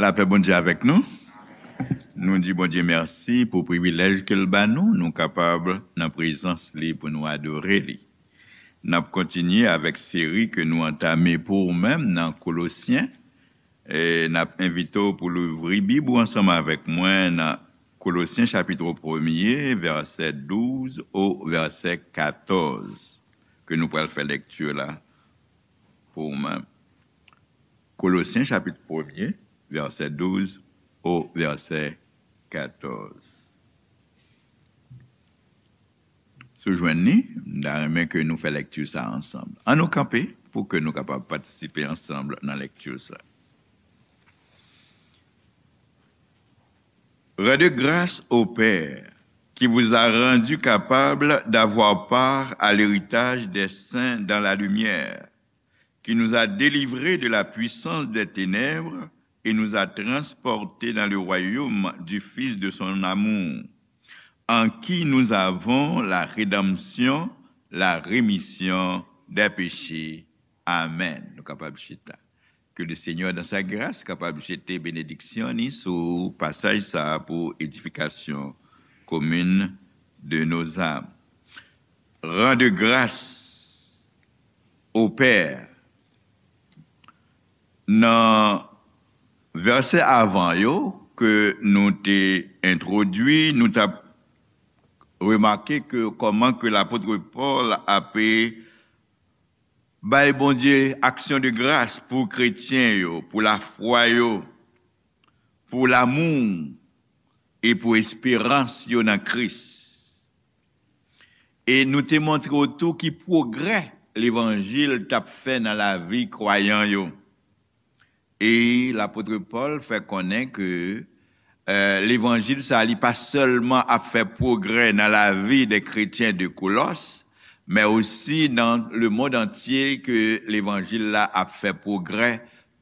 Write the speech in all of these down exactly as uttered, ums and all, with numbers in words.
Lapè Bondye avèk nou. Nou di Bondye mèsi pou privilèj ke l ba nou, nou kapab nan prezans li pou nou adore li. N ap kontinye avèk seri ke nou antame pou ou menm nan Kolosyen. E n ap envite w pou louvri Bib ou ansanm avèk mwen nan Kolosyen chapit premye, vèsè douz o vèsè katòz, ke nou pral fè lekti la pou ou menm. Kolosyen chapit premye, vèsè douz o vèsè katòz. Si w jwenn li, m ta renmen ke nou fè lekti sa ansanm. Ann nou kanpe pou ke nou kapab patisipe ansanm nan lekti sa. Rendez grâce au Père qui vous a rendu capable d'avoir part à l'héritage des saints dans la lumière, qui nous a délivrés de la puissance des ténèbres et nous a transportés dans le royaume du Fils de son amour, en qui nous avons la rédemption, la rémission des péchés. Amen. Nou kapab chita. Ke le Seigneur, dans sa grâce, kapab jete benediksyon ni sou pasaj sa pou edifikasyon komin de nos âmes. Rende gras o Pè. Nan vèsè avan yo ke nou te entwodui, nou t ap remake ke kòman ke lapot Pòl ape bay Bondye aksyon de gras pou kretyen yo, pou lafwa yo, pou lamou e pou esperans yo nan Kris. E nou te montre w tou ki pwogrè levanjil t ap fè nan lavi kwayan yo. E lapot Pòl fè konnen ke, eh, levanjil sa a, li pa sèlman ap fè pwogrè nan lavi de kretyen de Kolòs, men osi nan lemonn antye ke levanjil la ap fè pwogrè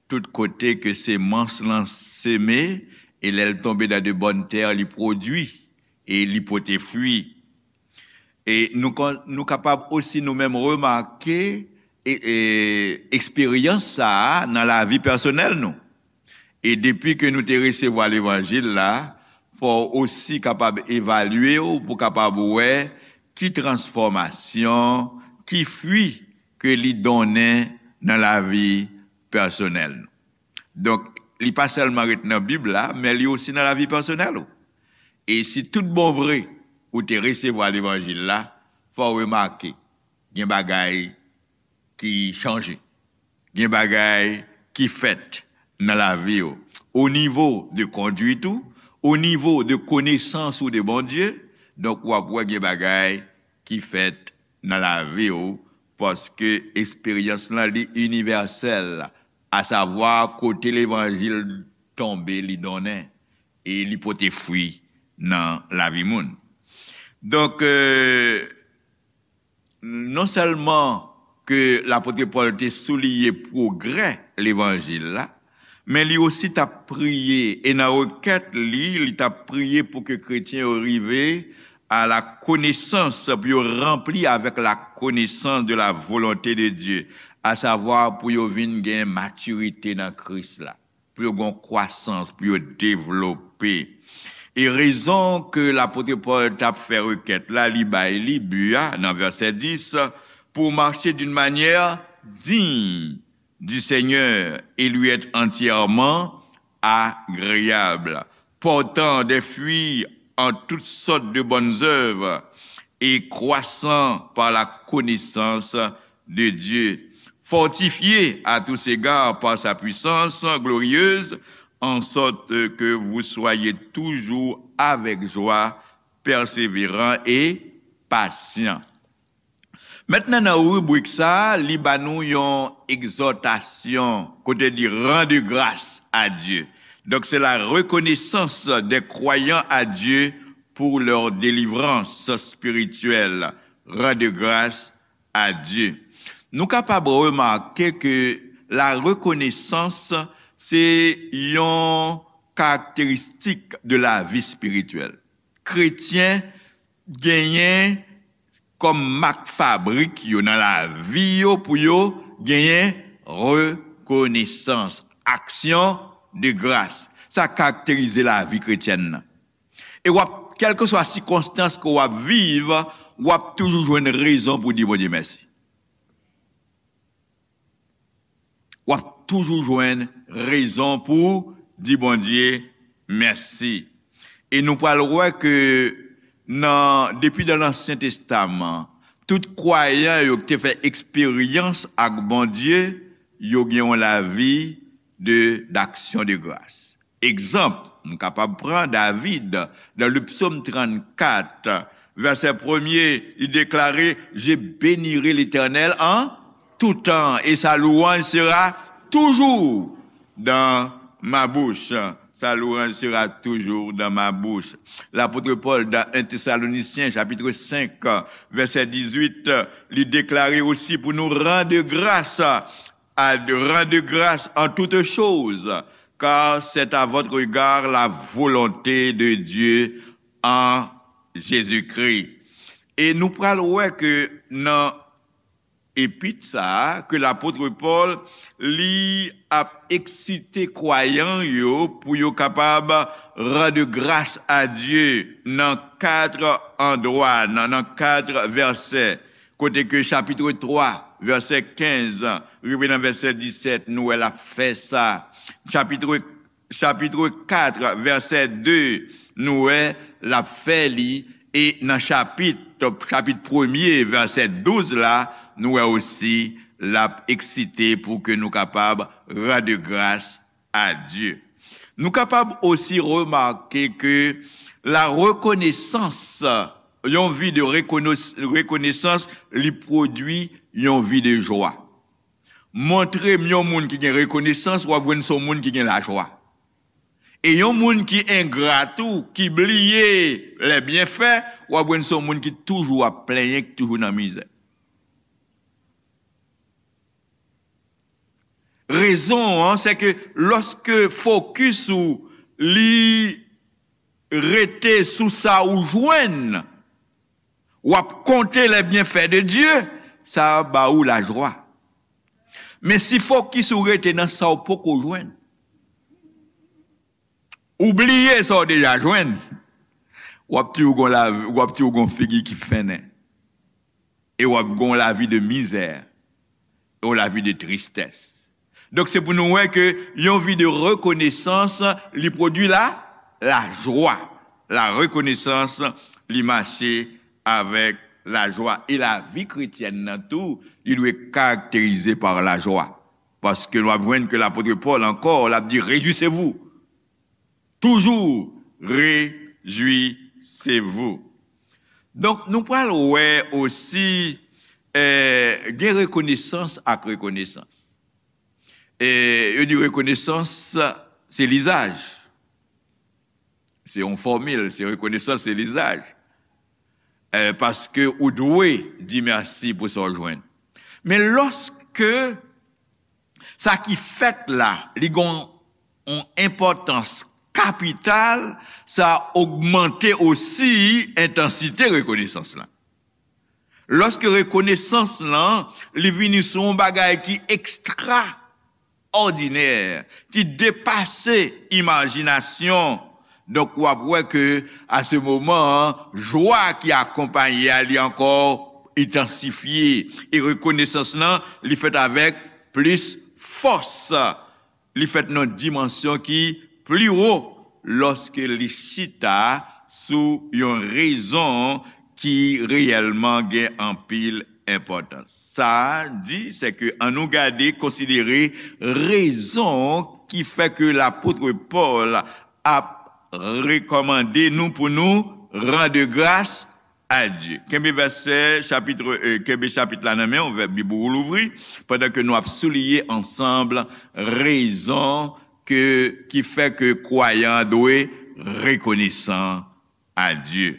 tout kote ke semans lan seme, e lè l tonbe nan de bòn tè, li pwodui e li pote fwi. E nou kon-, nou kapab osi nou menm remake e, e, eksperyans sa a nan lavi pèsonèl nou. E depi ke nou te resevwa levanjil la, fò w osi kapab evalye w pou kapab wè ki transfòmasyon, ki fwi ke li donnen nan lavi pèsonèl nou. Donk, li pa sèlman ret nan Bib la, men li osi nan lavi pèsonèl ou. E si tout bon vre ou te resevwa levanjil la, fò w remake, gen bagay ki chanje. Gen bagay ki fèt nan lavi w. O nivo de konduit ou, o nivo de konesans ou de Bondye, donk w ap wè gen bagay ki fèt nan lavi w, paske eksperyans lan li inivèsèl, asavwa kote levanjil tonbe li donnen, e li pote fwi nan lavi moun. Donk, eh, non sèlman ke lapot Pòl te souliye pwogrè levanjil la, men li osi t ap priye, e nan rekèt li, li t ap priye pou ke kretyen yo rive à la connaissance, pou yo ranpli avèk la connaissance de la volonté de Dieu, asavwa pou yo vin gen matirite nan Kris la, pou yo gen kwasans, pou yo devlope. E rezon ke lapot Pòl t ap fè rekèt la, li bay li bi a nan vèsè dis, pour marcher d'une manière digne du Seigneur et lui être entièrement agréable, portant des fruits en toutes sortes de bonnes œuvres et croissant par la connaissance de Dieu, fortifié à tous égards par sa puissance glorieuse, en sorte que vous soyez toujours avec joie, persévérant et patient. Mentnan, nan ribrik sa a, li ba nou yon egzòtasyon, kote li rende gras a Dye. Donk, se la reconnaissance des croyants à Dieu pour leur délivrance spirituelle. Rendre grâce à Dieu. Nou kapab remake ke la rekonesans se yon karakteristik de lavi espirityèl. Kretyen genyen kòm mak fabrik yo nan lavi yo pou yo genyen rekonesans, aksyon de gras. Sa karakterize lavi kretyèn nan. E w ap, kèlkeswa sikonstans ke w ap viv, w ap toujou jwenn rezon pou di Bondye mèsi. W ap toujou jwenn rezon pou di Bondye mèsi. E nou pral wè ke nan, depi nan Ansyen Testaman, tout kwayan yo ki te fè eksperyans ak Bondye, yo gen yon lavi de, d'action de grâce. Egzanp, m kapab pran David, dans le psaume trannkat, vèsè premye, li deklare, Je bénirai l'Éternel en tout temps, et sa louange sera toujours dans ma bouche. Sa louange sera toujours dans ma bouche. Lapot Pòl, dans un Thessaloniciens, chapitre cinq, vèsè dizuit, li deklare osi pou nou rendre grâce à, rendre grâce en toutes choses, car c'est à votre égard la volonté de Dieu en Jésus-Christ. E nou pral wè ke nan epit sa a, ke lapot Pòl, li ap eksite kwayan yo pou yo kapab rendre grâce à Dieu nan kat andwa, nan, nan kat vèsè. Kote ke chapit twa, vèsè kenz, rive nan vèsè disèt, nou wè l ap fè sa. Chapit, chapit kat, vèsè de, nou wè l ap fè li. E nan chapit, chapit premye, vèsè douz la, nou wè osi l ap eksite pou ke nou kapab rendre grâce à Dieu. Nou kapab osi remake ke la rekonesans, yon vi de rekonos-, rekonesans, li pwodui yon vi de jwa. Montre m yon moun ki gen rekonesans, w ap jwenn se yon moun ki gen lajwa. E yon moun ki engra tou, ki bliye lè byenfè, w ap jwenn se yon moun ki toujou ap plenyen, ki toujou nan mizè. Rezon an, se ke lòske fokis ou li rete sou sa ou jwenn, w ap konte les bienfaits de Dieu, sa ba ou lajwa. Men si fokis ou rete nan sa w poko jwenn, ou bliye sa w deja jwenn, w ap toujou gon lavi, w ap toujou gon figi ki fennen. E w ap gon lavi de mizè, yon lavi de tristès. Donk, se pou nou wè ke yon vi de rekonesans, li pwodui la, lajwa. La rekonesans, li mache avèk lajwa. E lavi kretyèn nan tou, li dwe karakterize pa lajwa. Paske nou ap jwenn ke lapot Pòl ankò, l ap di, Réjouissez-vous. Toujours réjouissez-vous. Donk, nou pral wè osi, eh, gen rekonesans ak rekonesans. E yo di rekonesans, se lizaj. Se yon fòmil, se rekonesans, se lizaj. Eh, paske ou dwe di mèsi pou sa w jwenn. Men lòske sa ki fèt la, li gon yon enpòtans kapital, sa ogmante osi entansite rekonesans lan. Lòske rekonesans lan, li vini sou yon bagay ki ekstraòdinè, ki depase imajinasyon, donk, w ap wè ke, a se moman an, jwa ki akonpaye a, li ankò entansifye. E rekonesans lan, li fèt avèk plis fòs. Li fèt nan dimansyon ki pli wo lòske li chita sou yon rezon ki reyèlman gen anpil enpòtans. Sa a di, se ke annou gade, konsidere rezon ki fè ke lapot Pòl ap rekòmande nou pou nou rendre grâce à Dieu. Kenbe vèsè, chapit, eh, kenbe chapit la nan men w, vè-, Bib ou louvri, pandan ke nou ap souliye ansanm rezon ke, ki fè ke kwayan an dwe rekonesan a Dye.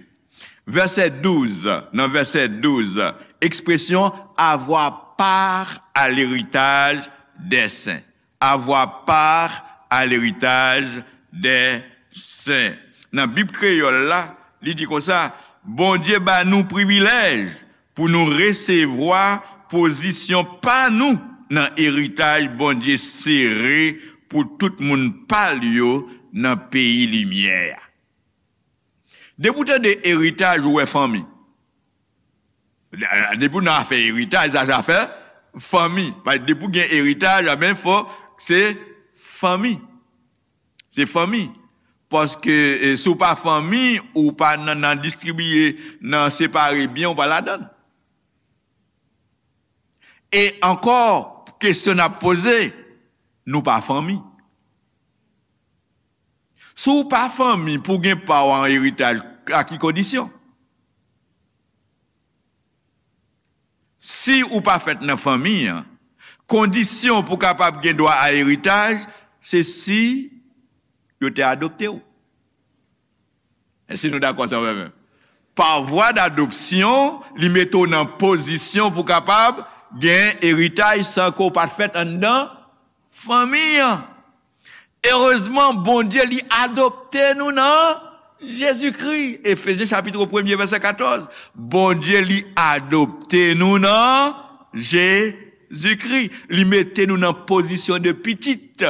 Vèsè douz, nan vèsè douz, ekspresyon avoir part à l'héritage des saints. Avoir part à l'héritage des saints. Nan Bib kreyòl la, li di konsa, Bondye ba nou privilèj pou nou resevwa pozisyon pa nou nan eritaj Bondye sere pou tout moun pa l yo nan peyi limyè a. Depi w tande eritaj, ou wè fanmi. Depi w nan afè eritaj, sa se afè fanmi. Paske depi w gen eritaj, a ben, fò se fanmi. Se fanmi. Paske, eh, si w pa fanmi, ou pa nan, nan distribiye, nan separe byen, ou pa ladan l. E ankò, kesyon n ap poze, nou pa fanmi. Si w pa fanmi, pou w gen pa w an eritaj, a ki kondisyon? Si ou pa fèt nan fanmi an, kondisyon pou w kapab gen dwa a eritaj, se si yo te adopte w. Èske nou dakò sa, frè m? Pa vwa dadopsyon, li mete w nan pozisyon pou w kapab gen eritaj san ke w pa t fèt anndan fanmi an. Erezman, Bondye, li adopte nou nan Jezikri. Efezyen chapit premye, vèsè katòz. Bondye, li adopte nou nan Jezikri. Li mete nou nan pozisyon de pitit.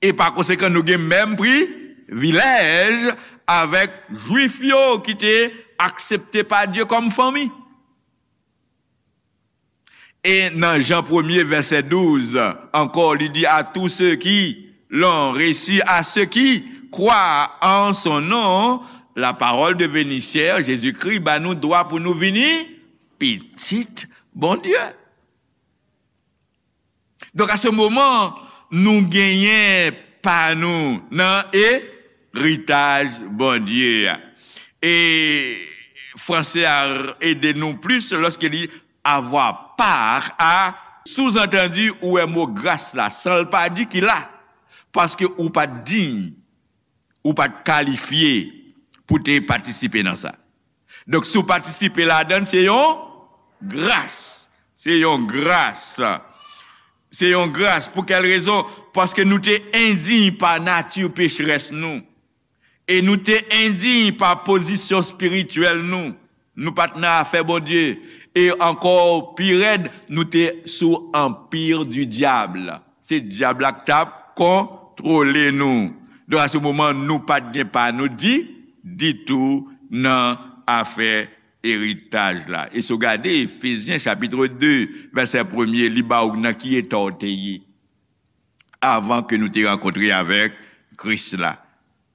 E pa konsekan, nou gen menm privilèj avèk Jwif yo ki te aksepte pa Dye kòm fanmi. E nan Jan premye, vèsè douz, ankò, li di, à tous ceux qui l'ont reçu, à ceux qui croient en son nom, la parole devenue chair, Jezikri ba nou dwa pou nou vini pitit Bondye. Donk, a se moman, nou genyen pa nou nan eritaj Bondye a. E franse a ede nou plis lòske li avoir part à, souzantandi, ou wè mo gras la, san l pa di ki la, paske ou pa t diy, ou pa t kalifye pou te patisipe nan sa. Donk, si w patisipe ladan l, se yon gras. Se yon gras. Se yon gras. Pou kèl rezon? Paske nou te endiy pa nati pecherès nou. E nou te endiy pa pozisyon espirityèl nou. Nou pa t nan afè Bondye. E ankò pi rèd, nou te sou anpi di dyab. Se dyab la k t ap kontwole nou. Donk, a se moman, nou pa t gen pa nou di, ditou nan afè eritaj la. E si w gade Efezyen chapit de, vèsè premye, li ba w nan ki eta w te ye avan ke nou te rankontre avèk Kris la.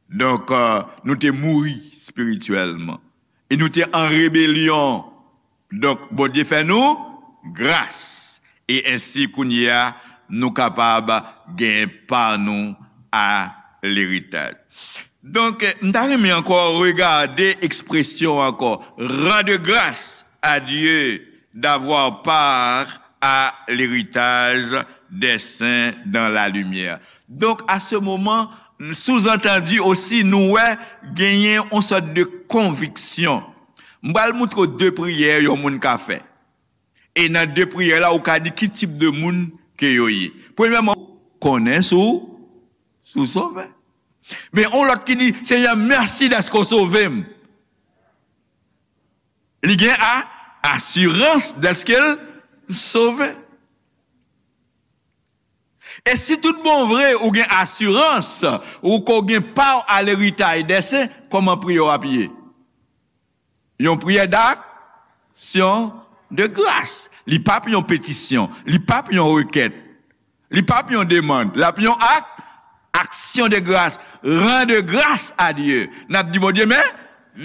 Donk, euh, nou te mouri espirityèlman. E nou te an rebelyon. Donk, Bondye fè nou gras. E ensi, kounye a, nou kapab gen pa nou a leritaj. Donk, m ta renmen ankò regade ekspresyon ankò, rendre grâce à Dieu d'avoir part à l'héritage des saints dans la lumière. Donk, a se moman, souzantandi osi, nou wè genyen yon sòt de konviksyon. M pral moutre w de priyè yon moun ka fè. E nan de priyè la, ou ka di ki tip de moun ke yo ye. Premyèman, konnen si w, si w sove. Men yon lòt ki di, Senyè, mèsi dèske w sove m. Li gen a, asirans dèske l sove. E si tout bon vre ou gen asirans, ou ko gen pa w a leritaj dè sen, kòman priyè w ap ye? Yon priyè d'aksyon de gras. Li p ap yon petisyon, li p ap yon rekèt, li p ap yon demann, l ap yon ak, aksyon de gras, rendre grâce à Dieu. N ap di Bondye, men,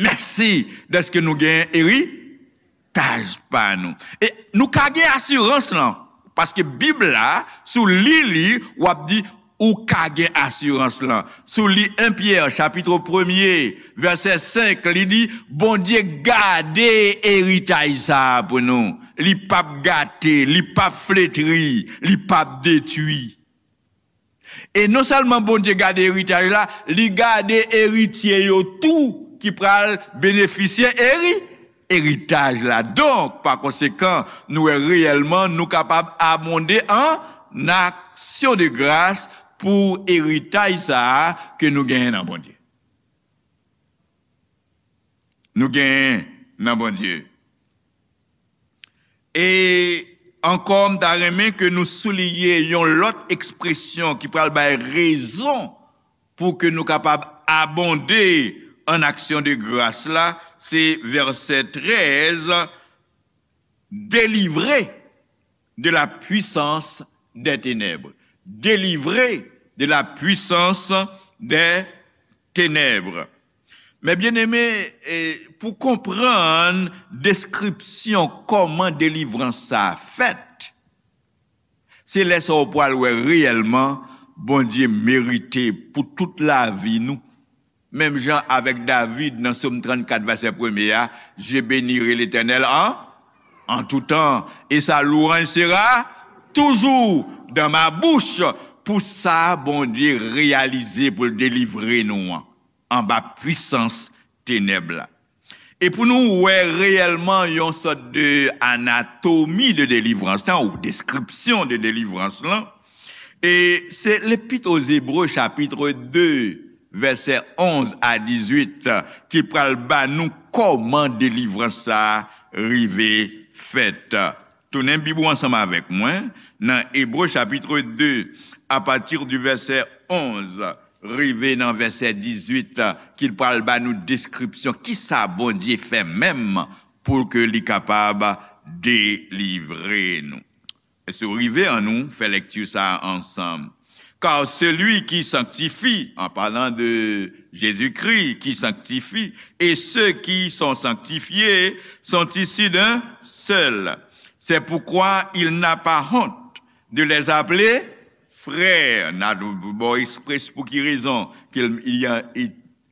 mèsi dèske nou gen eritaj pa nou. E nou ka gen asirans lan, paske Bib la, si w li li, w ap di, ou ka gen asirans lan. Si w li en Pyè, chapit premye, vèsè senk, li di, Bondye gade eritaj sa a pou nou. Li p ap gate, li p ap fletri, li p ap detwi. E non sèlman Bondye gade eritaj la, li gade eritye yo tou ki pral benefisye eri, eritaj la. Donk, pa konsekan, nou wè reyèlman nou kapab abonde an aksyon de gras pou eritaj sa a ke nou genyen nan Bondye. Nou genyen nan Bondye. E Ankò, m ta renmen ke nou souliye yon lòt ekspresyon ki pral bay rezon pou ke nou kapab abonde an aksyon de gras la, se vèsè trèz, délivré de la puissance des ténèbres. Délivré de la puissance des ténèbres. Men byeneme, e, pou konprann deskripsyon kòman delivrans sa a fèt, se lè sa w pral wè reyèlman Bondye merite pou tout lavi nou. Menm jan avèk David nan Sòm trannkat, vèsè premye a, Je bénirai l'Éternel en, en tout temps, et sa louange sera toujours dans ma bouche. Pou sa Bondye reyalize pou l delivre nou an, anba pwisans tenèb la. E pou nou wè reyèlman yon sòt de anatomi de delivrans lan, ou deskripsyon de delivrans lan, e se Lepit o Zebre, chapit de, vèsè onz a dizuit, ki pral ba nou kòman delivrans sa a rive fèt. Tounen Bib ou ansanm avèk mwen nan Ebre, chapit de, apati di vèsè onz rive nan vèsè dizuit, ki pral ba nou deskripsyon kisa Bondye fè menm pou ke li kapab delivre nou. Èske w rive? Annou fè lèkti sa a ansanm. Car celui qui sanctifie, en parlant de Jésus-Christ qui sanctifie, et ceux qui sont sanctifiés sont issus d'un seul. C'est pourquoi il n'a pas honte de les appeler frères. N a bon eksprès pou ki rezon ke l, li,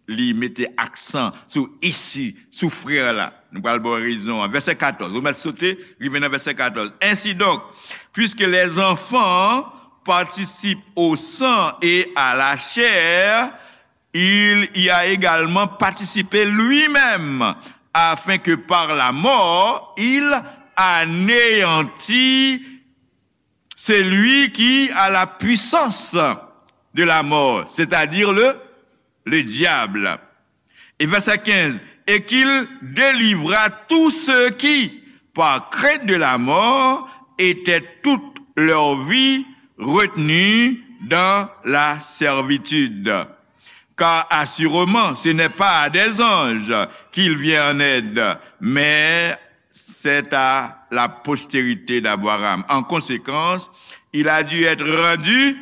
li mete aksan sou isi, sou frè la. Nou pral ba w rezon an. Vèsè katòz. Ou mèt sote, rive nan vèsè katòz. Ainsi donc, puisque les enfants participent au sang et à la chair, il y a également participé lui-même, afin que par la mort, il anéantît celui qui a la puissance de la mort, c'est-à-dire le, le diable. Et verset quinze, et qu'il délivra tous ceux qui, par crainte de la mort, étaient toute leur vie retenus dans la servitude. Car assurément, ce n'est pas à des anges qu'il vient en aide, mais c'est à la postérité d'Abraham. En conséquence, il a dû être rendu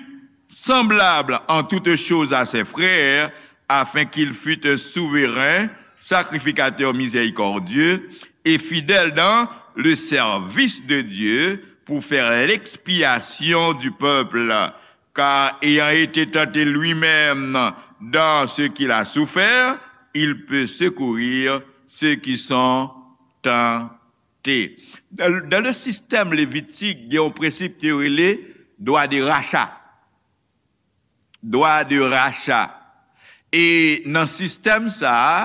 semblable en toutes choses à ses frères, afin qu'il fût un souverain sacrificateur miséricordieux et fidèle dans le service de Dieu pour faire l'expiation du peuple. Car ayant été tenté lui-même dans ce qu'il a souffert, il peut secourir ceux qui sont tentés. Dans, dans le système lévitique, gen yon prensip ki rele droit de rachat. Droit de rachat. E nan sistèm sa a,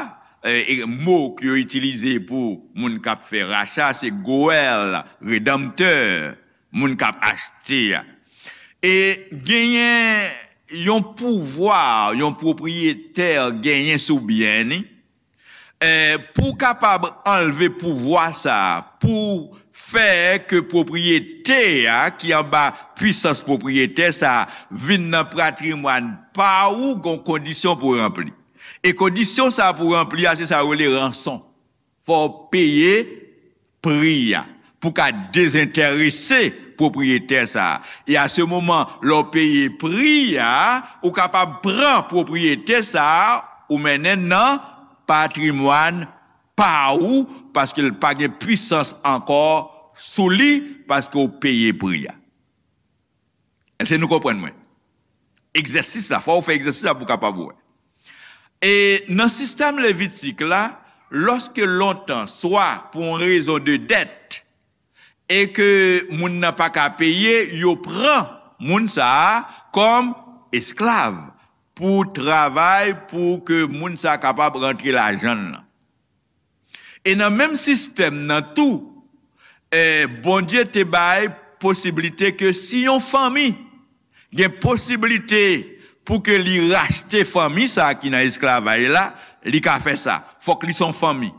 e, e mo ke yo itilize pou moun k ap fè racha, se goèl, redanmtè, moun k ap achte a. E genyen yon pouvwa, yon pwopriyetè genyen sou byen ni, e, pou w kapab anlve pouvwa sa a, pou fè ke pwopriyete a, ki anba pwisans pwopriyetè sa a, vin nan patrimwàn pa ou, gon kondisyon pou ranpli. E kondisyon sa a pou ranpli a, se sa yo rele ranson. Fò w peye pri a pou ka dezenterese pwopriyetè sa a. E a se moman, lè w peye pri a, ou kapab pran pwopriyete sa a, ou mennen nan patrimwàn pa ou, paske l pa gen pwisans ankò sou li, paske w peye pri a. Èske nou konprann mwen? Egzèsis la, fò w fè egzèsis la pou w kapab wè. E nan sistèm levitik la, lòske lontan, swa pou yon rezon de dèt, e ke moun nan pa ka peye, yo pran moun sa a kòm esklav pou travay, pou ke moun sa a kapab rantre lajan l lan. E nan menm sistèm nan tou, e, Bondye te bay posiblite ke si yon fanmi gen posiblite pou ke li rachte fanmi sa a ki nan esklavaj la, li ka fè sa. Fòk li se yon fanmi.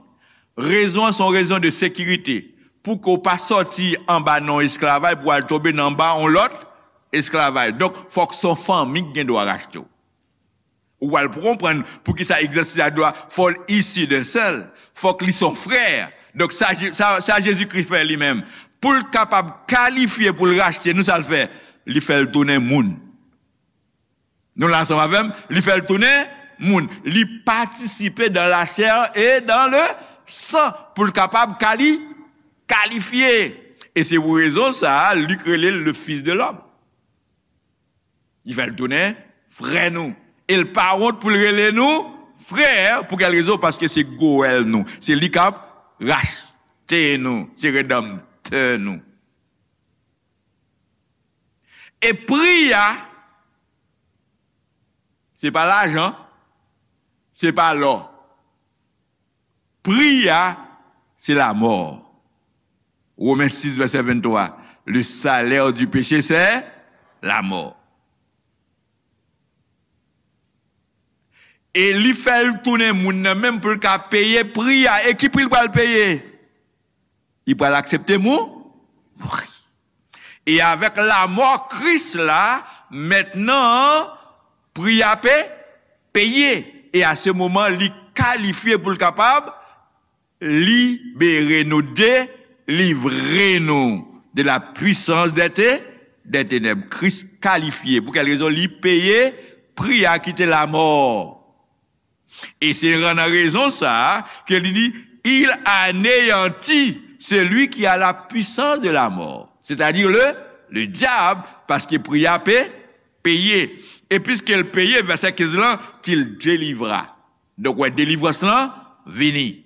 Rezon an se yon rezon de sekirite. pou ke w pa sòti anba nan yon esklavay pou w al tonbe nan anba yon lòt esklavay. Donk, fòk se yon fanmi ki gen dwa rachte w. Ou pral konprann poukisa egzansis la dwa fò l isi de sèl. Fòk li se yon frè. Donk, sa, Je- sa, sa Jezikri fè li menm. Pou l kapab kalifye pou l rachte nou, sa l fè? Li fè l tounen moun. Nou la ansanm avè m? Li fè l tounen moun. Li patisipe dans la chair et dans le sang pou l kapab kali, kalifye. E se pou rezon sa a, Lik rele l le Fils de l'homme. Li fè l tounen frè nou. E l pa wont pou l rele nou frè. Pou kèl rezon? Paske se Goèl nou. Se li k ap rachte nou. Se Redanmtè nou. E pri a, se pa lajan, se pa lò. Pri a, se lamò. Women sis, vèsè venntwa. Le salaire du péché, c'est la mort. E li fè l tounen moun nan menm pou l ka peye pri a. E ki pri l pral peye? Li pral aksepte mou-, mouri. E avèk lamò Kris la, mentnan, pri a pe-, peye. E a se moman, li kalifye pou l kapab libere nou, delivre nou de la puissance des té-, des ténèbres. Kris kalifye. Pou kèl rezon? Li peye pri a ki te lamò. E se nan rezon sa a ke li di, il anéantit celui qui a la puissance de la mort, c'est-à-dire le, le diable, paske pri a pe-, peye. E piske l peye, vèsè kenz lan, qu'il délivra. Donk, wè, delivrans lan vini.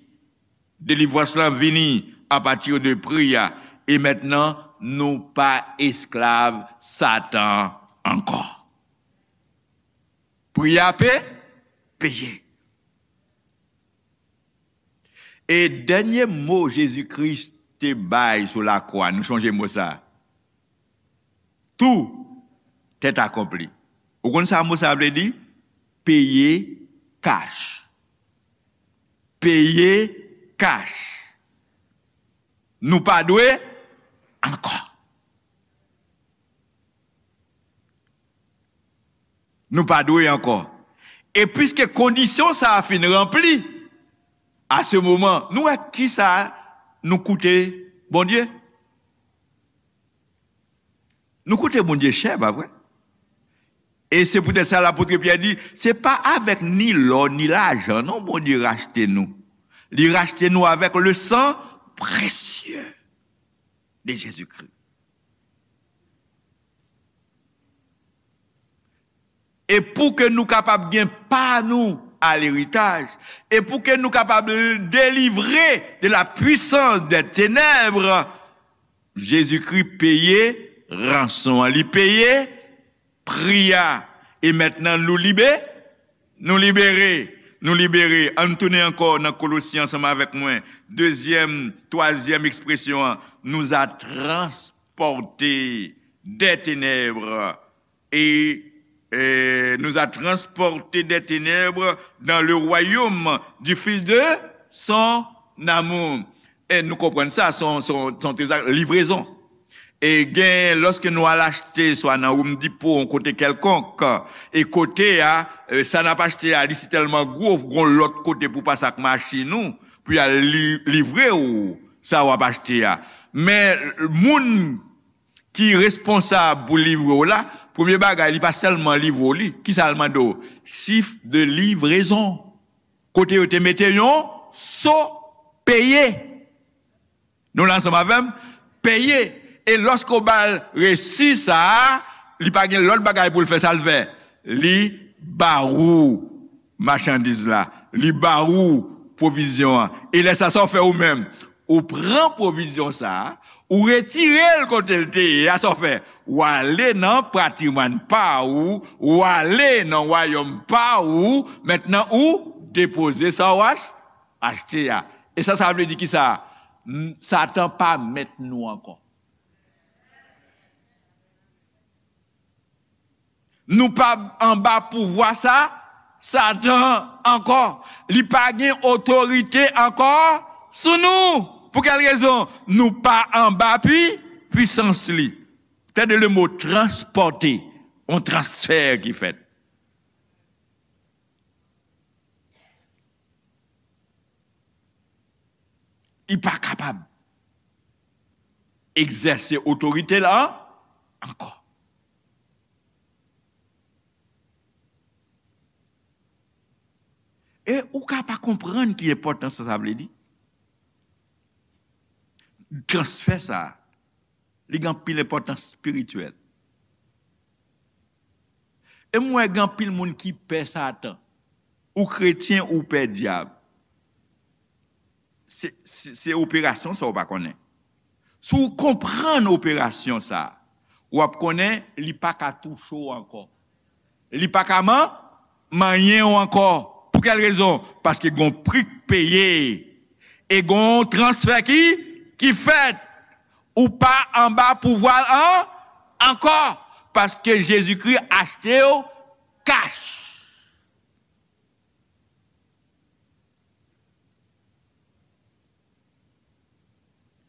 Delivrans lan vini apati de pri a. E mentnan, nou pa esklav Satan ankò. Pri a pe-, peye. E dènye mo Jezikri te bay sou lakwa, nou sonje mo sa a. Tout est accompli. Ou konn sa mo sa a vle di? Peye kach. Peye kach. Nou pa dwe ankò. Nou pa dwe ankò. E piske kondisyon sa a fin ranpli, a se moman, nou wè kisa nou koute Bondye? Nou koute Bondye chè, pa vre? E se poutèt sa lapot Pyè di, se pa avèk ni lò, ni lajan, non, Bondye rachte nou. Li rachte nou avèk le sang précieux de Jésus-Christ. E pou ke nou kapab gen pa nou a leritaj, e pou ke nou kapab delivre de la puissance des ténèbres, Jezikri peye ranson an, li peye pri a. E mentnan nou libe, nou libere, nou libere. Ann tounen ankò nan Kolosyen ansanm avèk mwen. Dezyèm, twazyèm ekspresyon an, nous a transportés des ténèbres et, euh, nous a transportés des ténèbres dans le royaume du Fils de son amour. E nou konprann sa, son, son, son trezò, livrezon. E gen, lòske nou al achte, swa nan Home Depot, yon kote kèlkonk, e kote a, e, sa n ap achte a, li sitèlman gwo, gon lòt kote pou pase ak machin ou, pou y al li-, livre ou sa w ap achte a. Men, moun ki responsab pou livre w la, premye bagay, li pa sèlman livre w li. Kisa l mande w? Chiffre de livraison. Kote yo te mete yon so peye. Nou la ansanm avè m? Peye. E lòske w ba l resi sa a, li pa gen lòt bagay pou l fè, sa l fè? Li ba ou machandiz la. Li ba ou pwovizyon an. E lè sa, sa w fè ou menm? Ou pran pwovizyon sa a, ou retire l kote l te ye a, sa w fè? Ou ale nan patrimwàn pa ou, ou ale nan wayòm pa ou, mentnan ou depoze sa w ach-, achte a. E sa, sa vle di kisa? M-, Satan pa mèt nou ankò. Nou pa anba pouvwa sa, Satan ankò. Li pa gen otorite ankò sou nou. Pou kèl rezon? Nou pa anba pwi, pwisans li. Tande le mo transpòte, yon transfè ki fèt. Li pa kapab egzèse otorite l ankò. E ou ka pa konprann ki enpòtans sa, sa vle di. Transfè sa, li gen anpil enpòtans espirityèl. E m wè gen anpil moun ki pè Satan. Ou kretyen, ou pè dyab. Se, se, se operasyon sa ou pa konnen. Si w konprann operasyon sa, w ap konnen li pa ka touche w ankò. Li pa ka man-, manyen w ankò. Pou kèl rezon? Paske gon pri k peye. E gon transfè ki, ki fèt. Ou pa anba pouvwa l an, ankò. Paske Jezikri achte w kach.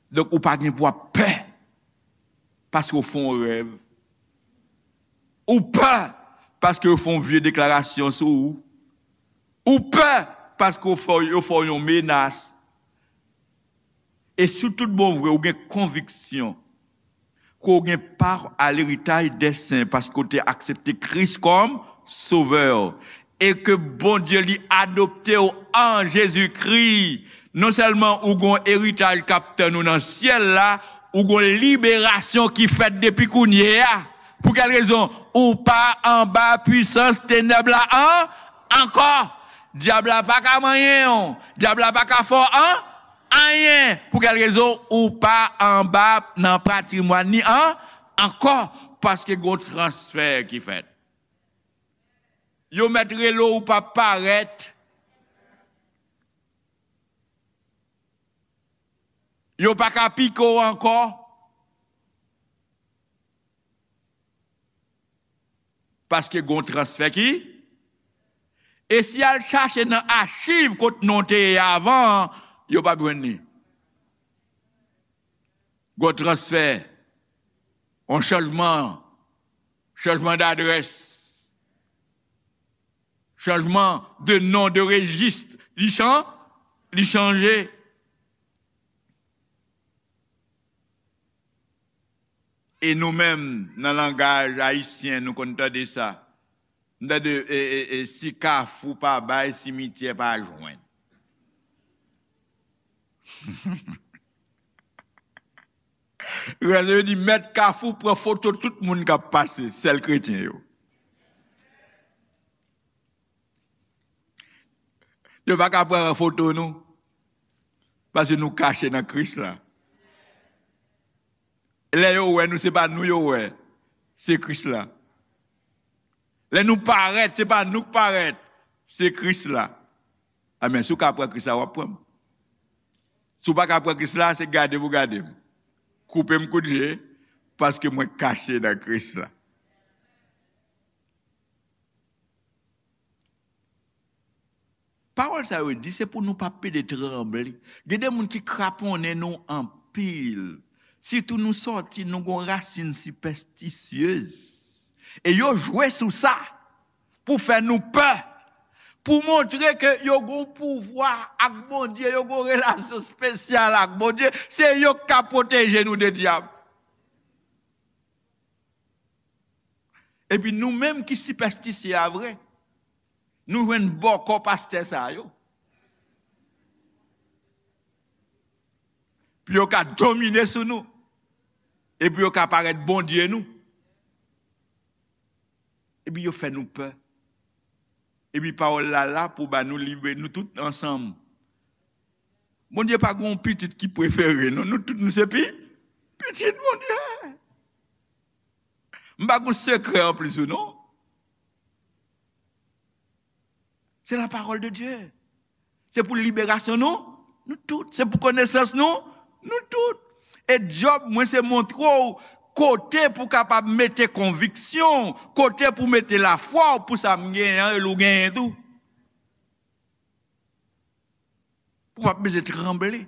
Donk, ou pa gen pou ap pè paske w fè yon rèv. Ou pè paske yo fè yon vye deklarasyon sou ou. Ou pè paske yo fè, yo fè w yon menas. E sou tout bon vre, ou gen konviksyon ke w gen pa a leritaj dè sen paske w te aksepte Kris kòm Sovè, e ke Bondye li adopte w an Jezikri. Non sèlman ou gen yon eritaj k ap tann ou nan syèl la, ou gen yon liberasyon ki fèt depi kounye a. Pou kèl rezon? Ou pa anba pwisans tenèb la an-, ankò. Dyab la pa ka manyen w. Dyab la pa ka fè w an-, anyen. Pou kèl rezon? Ou pa anba nan patrimwàn li an-, ankò. Paske gen yon transfè ki fèt. Yo mèt rele w, ou p ap parèt. Yo pa ka pike w ankò. Paske gon transfè ki. E si y al chache nan achiv kot non te ye avan an, yo p ap jwenn li. Gon transfè, yon chanjman, chanjman dadrès, chanjman de non, de rejis, li chan-, li chanje. E nou menm, nan langaj ayisyen, nou konn tande sa. M tande, e, e, e, si Kafou pa bay, simityè pa jwenn. Rèl yo di, mèt Kafou pran foto tout moun k ap pase, sèl kretyen yo. Yo pa ka pran foto nou, paske nou kache nan Kris la. Lè yo wè nou, se pa nou yo wè, se Kris la. Lè nou parèt, se pa nou k parèt, se Kris la. Amèn. Si w ka pran Kris la, w ap pran m. Si w pa ka pran Kris la, se gade pou gade m. Koupe m kout je, paske mwen kache nan Kris la. Pawòl sa yo di, se pou nou pa pede tranble. Gen de moun ki kraponnen nou anpil. Sitou nou sòti, nou gon rasin sipèstisyez. E yo jwe sou sa pou fè nou pè. Pou montre ke yo gon pouvwa ak Bondye, yo gon relasyon espesyal ak Bondye. Se yo k ka pwoteje nou de dyab. Epi nou menm ki sipèstisye a vre, nou jwenn bòkò pastè sa yo. Pou yo ka domine sou nou. Epi yo ka parèt Bondye nou. Epi yo fè nou pè. Epi pawòl la la pou ba nou libe, nou tout ansanm. Bondye pa gen yon pitit ki prefere, non. Nou tout, nou se pi, pitit Bondye. M pa gen sekrè anplis ou, non. Se la parole de Dieu. Se pou liberasyon nou, nou tout. Se pou konesans nou, nou tout. E djòb mwen se montre w kote pou kapab mete konviksyon, kote pou mete lafwa w pou sa m genyen an, e l ou genyen tou. Pou w pa bezwen tranble.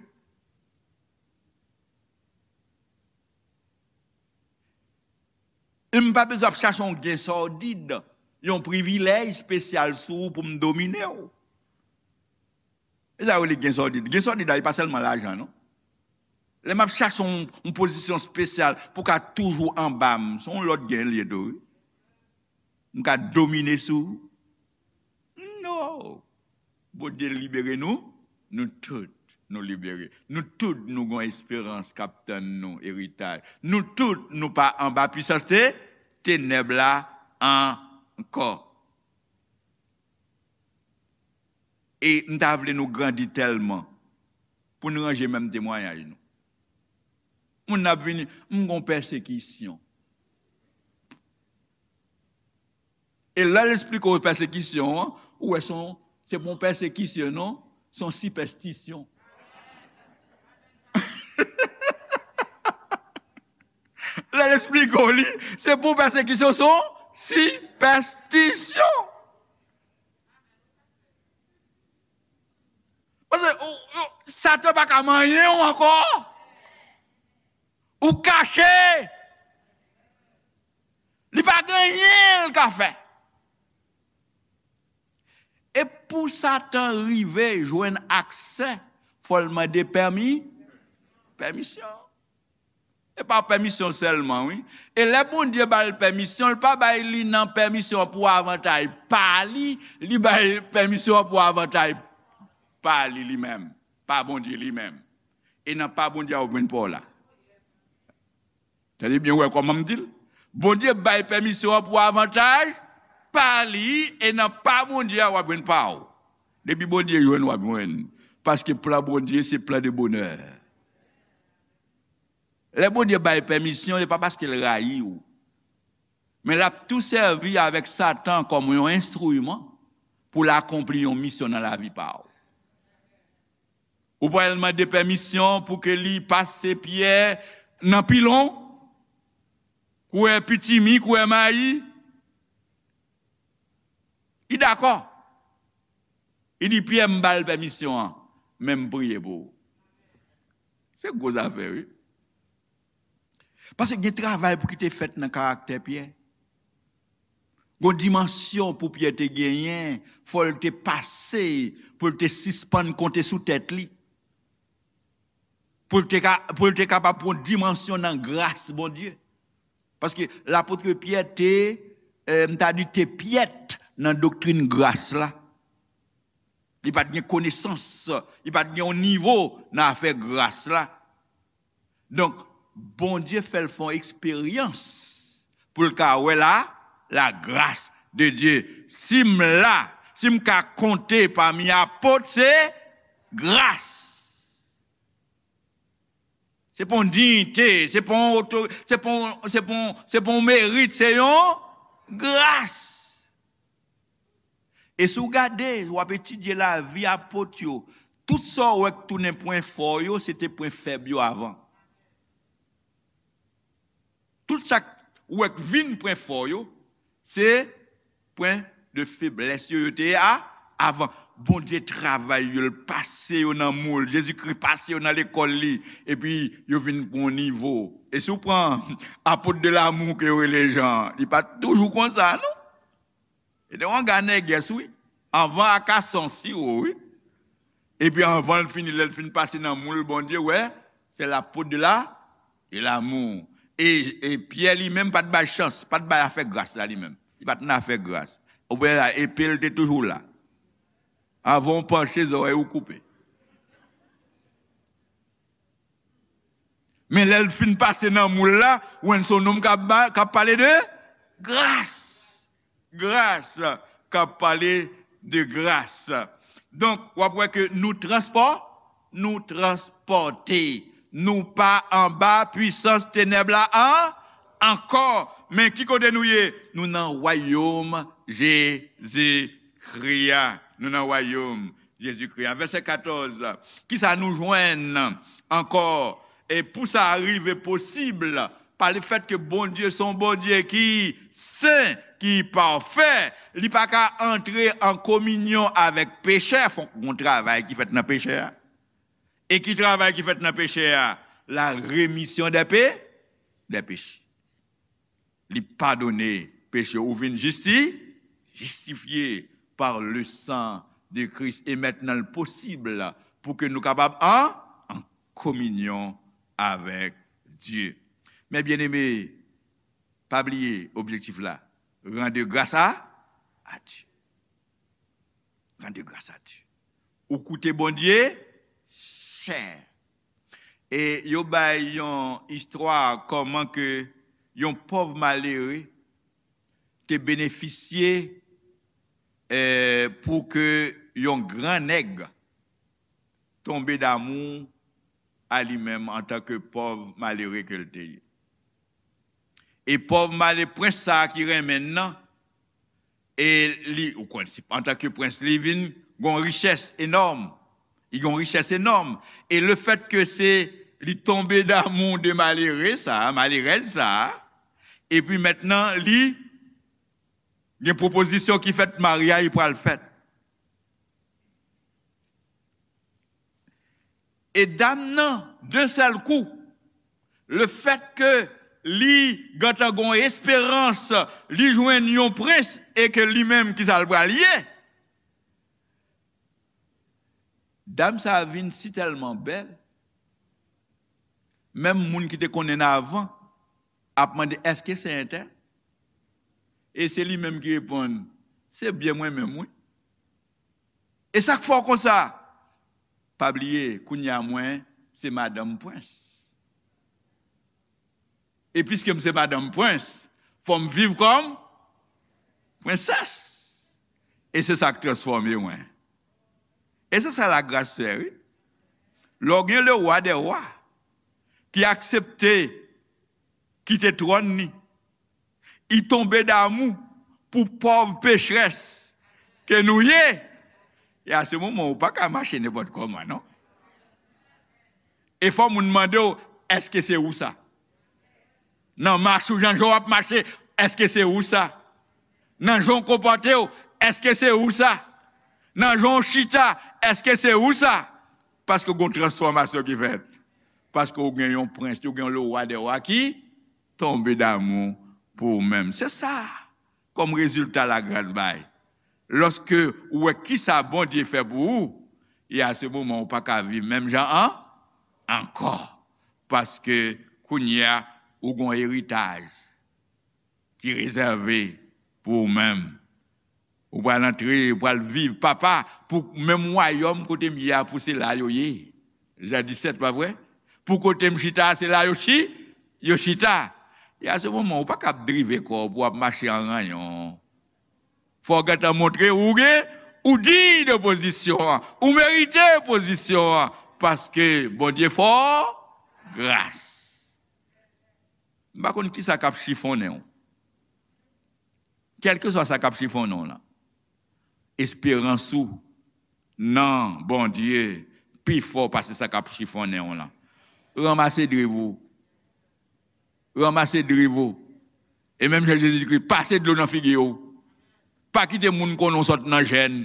E m pa bezwen ap chache yon gen sòdid, yon privilèj espesyal sou ou pou m domine w. E sa yo rele gen sòdid. Gen sòdid la, e pa sèlman lajan, non. Lè m ap chache yon, yon pozisyon espesyal pou ka toujou anba m, se yon lòt gen l ye tou, wi. M ka domine sou ou. No! Bondye libere nou, nou tout nou libere. Nou tout nou gon esperans k ap tann nou, eritaj. Nou tout nou pa anba pwisans te, tenèb la ankò. E m ta vle nou grandi tèlman pou n ranje menm temwayaj nou. Moun nan ap vini, m gon pèsekisyon. E lè l esplike w pèsekisyon an, ou wè se yon, se pa yon pèsekisyon, non, se yon sipèstisyon. Lè l esplike w li, se pa yon pèsekisyon, se yon sipèstisyon. Paske ou, ou, Satan pa ka manyen w ankò. Ou kache. Li pa gen anyen l ka fè. E pou Satan rive jwenn aksè, fò l mande pèmi, pèmisyon. E pa pèmisyon sèlman, wi. E lè Bondye ba l pèmisyon, l pa bay li nan pèmisyon an pou avantaj pa li, li bay pèmisyon an pou avantaj pa li, li menm, pa Bondye li menm. E nan pa Bondye a w ap jwenn pa w la. Tande byen, wè kòman m di l. Bondye bay pèmisyon an pou avantaj pa li, e nan pa Bondye a w ap jwenn pa w. Depi Bondye jwenn, w ap jwenn. Paske plan Bondye se plan de bonè. Lè Bondye bay pèmisyon, se pa paske l rayi w. Men l ap tou sèvi avèk Satan kòm yon enstriman pou l akonpli yon misyon nan lavi pa w. Ou pral mande pèmisyon pou ke li pase Pyè nan pilon, koulè pitimi, koulè mayi. Li dakò. Li di, Pyè, m ba l pèmisyon an, men m priye pou ou. Se gwo zafè, wi. Paske gen travay pou ki te fèt nan karaktè Pyè. Gon dimansyon pou Pyè te genyen, fò l te pase, pou l te sispann konte sou tèt li. Pou l te ka, pou l te kapab pran dimansyon nan gras Bondye. Paske lapot Pyè te, eh, m ta di te pyèt nan doktrin gras la. Li pa t gen konesans, li pa t gen yon nivo nan afè gras la. Donk, Bondye fè l fè yon eksperyans pou l ka wè la, la grâce de Dieu. Si m la, si m ka konte pami apot, se gras. Se pa yon diyite, se pa yon oto-, se pa yon, se pa yon, se pa yon merit, se yon gras. E si w gade, w ap etidye lavi apot yo, tout sa w wè k tounen pwen fò yo, se te pwen fèb yo avan. Tout sa k w wè k vin pwen fò yo, se pwen de feblès yo, yo te ye a, avan. Bondye travay yo, l pase yo nan moul. Jezikri pase yo nan lekòl li, epi yo vin pran yon nivo. E si w pran apot de l'amour ke yo rele Jan, li pa t toujou konsa, non. E te yon gade nègès, wi. Anvan akasan siwo, wi. Epi anvan l fini, lè l fin pase nan moul Bondye, wè, se lapot de la, de l'amour. E, e Pyè li menm pa t bay chans, pa t bay afè gras la li menm. Li pa t nan afè gras. Ou wè la, epe l te toujou la. Avan w panche, zòrèy ou koupe. Men lè l fin pase nan moul la, w wè se yon nonm k ap ba-, k ap pale de gras. Gras, k ap pale de gras. Donk, w ap wè ke nou transpò-, nou transpòte. Nou pa anba pwisans tenèb la an-, ankò. Men ki kote nou ye? Nou nan wayòm Jezikri a. Nou nan wayòm Jezikri a. Vèsè katòz, kisa nou jwenn ankò? E pou sa rive posib, pa lefèt ke Bondye se yon Bondye ki sen, ki pafè, li pa ka antre an kominyon avèk pechè, fòk gon travay ki fèt nan pechè a. E ki travay ki fèt nan pechè a? La remisyon dè pe-, dè peche. Li padone peche w. Ou vin jisti, jistifye par le sang de Christ. E mentnan, l posib pou ke nou kapab an, an kominyon avèk Dye. Men byeneme, pa bliye objektif la. Rendre grâce à, à Dieu. Rendre grâce à Dieu. Ou koute Bondye chè. E yo bay yon istwa kòman ke yon pòv malere te benefisye, eh, pou ke yon gran nèg tonbe damou a li menm antanke pòv malere ke l te ye. E pòv male, prens sa a ki renmen l nan, e li, ou konn, si, antanke prens, li vin gon richès enòm. Li gon richès enòm. E le fèt ke se li tonbe damou de malere sa a, malerèz sa a, epi mentnan, li gen pwopozisyon ki fèt, maryaj pral fèt. E dam nan, de sèl kou, le fèt ke li gentan gon esperans, li jwenn yon prens e ke li menm, ki sa l pral ye? Dam sa a vin si tèlman bèl, menm moun ki te konnen l avan ap mande, "Èske se entèl?" E se li menm ki reponn, "Se byen mwen menm, wi." E sa k fè w konsa? Pa bliye, kounye a mwen, se madanm prens. E piske m se madanm prens, fò m viv kòm prensès. E se sa k transfòme mwen. E se sa lagras fè, wi. Lè w gen le roi des rois ki aksepte kite twòn li, li tonbe damou pou pòv pechrès ke nou ye. E a se moman ou pa ka mache nenpòt kòman, non. E fò moun mande w, "Èske se ou sa?" Nan mach ou, jan w ap mache, "Èske se ou sa?" Nan jan w konpòte w, "Èske se ou sa?" Nan jan w chita, "Èske se ou sa?" Paske gon transfòmasyon ki fèt. Paske ou gen yon prens, ou gen yon le roi des rois ki tonbe damou pou ou menm. Se sa kòm rezilta lagras bay. Lòske ou wè kisa Bondye fè pou ou, e a se moman ou pa ka viv menm jan an, ankò. Paske kounye a, ou gon eritaj ki rezève pou ou menm. Ou pral antre, ou pral viv, papa, pou menm wayòm kote m ye a, pou se la yo ye. Jan disèt, pa vre? Pou kote m chita a, se la yo chi, yo chita. E a se moman, ou pa ka ap drive kò w pou w ap mache an ranyon. Fò w gentan montre ou gen, ou diy de pozisyon an, ou merite pozisyon an, paske Bondye fè w gras. M pa konn kisa k ap chifonnen w. Kèlkeswa sa k ap chifonnen w lan, esperans ou nan Bondye pi fò pase sa k ap chifonnen w lan. Ranmase driv ou. Ranmase driv ou. E menm jan Jezikri, pase dlo nan figi w. Pa kite moun konnen w sot nan jèn.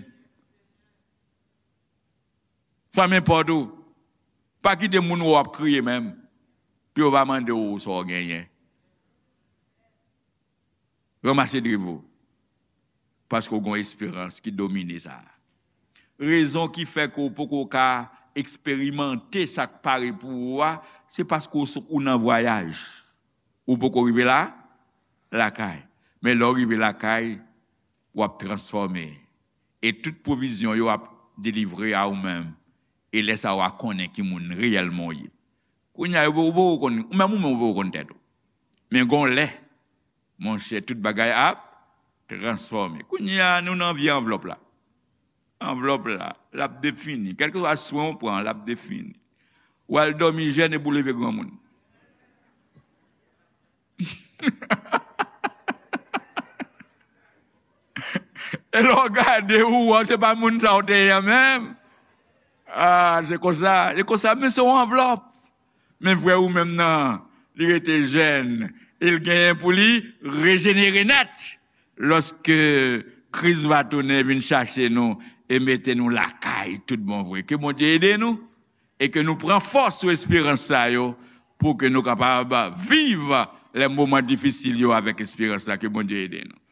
Fèmen pòt ou. Pa kite moun wè w ap kriye menm, pou yo pa mande w sa w genyen. Ranmase driv ou. Paske w gen yon esperans ki domine sa. Rezon ki fè ke w poko ka eksperimante sa k pare pou ou a, se paske w sou, ou nan vwayaj. Ou poko rive la, lakay. Men lè w rive lakay, w ap transfòme. E tout pwovizyon yo ap delivre a ou menm. E lè sa a, w a konnen ki moun reyèlman w ye. Kounye a, ou poko konn, ou menm, ou menm, ou poko konn tèt ou. Men gon lè, monchè, tout bagay ap transfòme. Kounye a, nou nan vye anvlòp la. Anvlòp la, l ap defini. Kèlkeswa swen w pran, l ap defini. W al dòmi jèn epi w leve granmoun. E lè w gade, ou wè se pa moun sa w te ye a menm. Ah, se konsa, se konsa, men se yon anvlòp. Men vrè ou menm nan, li rete jèn. E l genyen pou li rejenere nèt. Lòske Kris va tounen vin chache nou e mete nou lakay tout bon vre. Ke Bondye ede nou e ke nou pran fòs sou esperans sa yo pou ke nou kapab viv lè moman difisil yo avèk esperans la. Ke Bondye ede nou.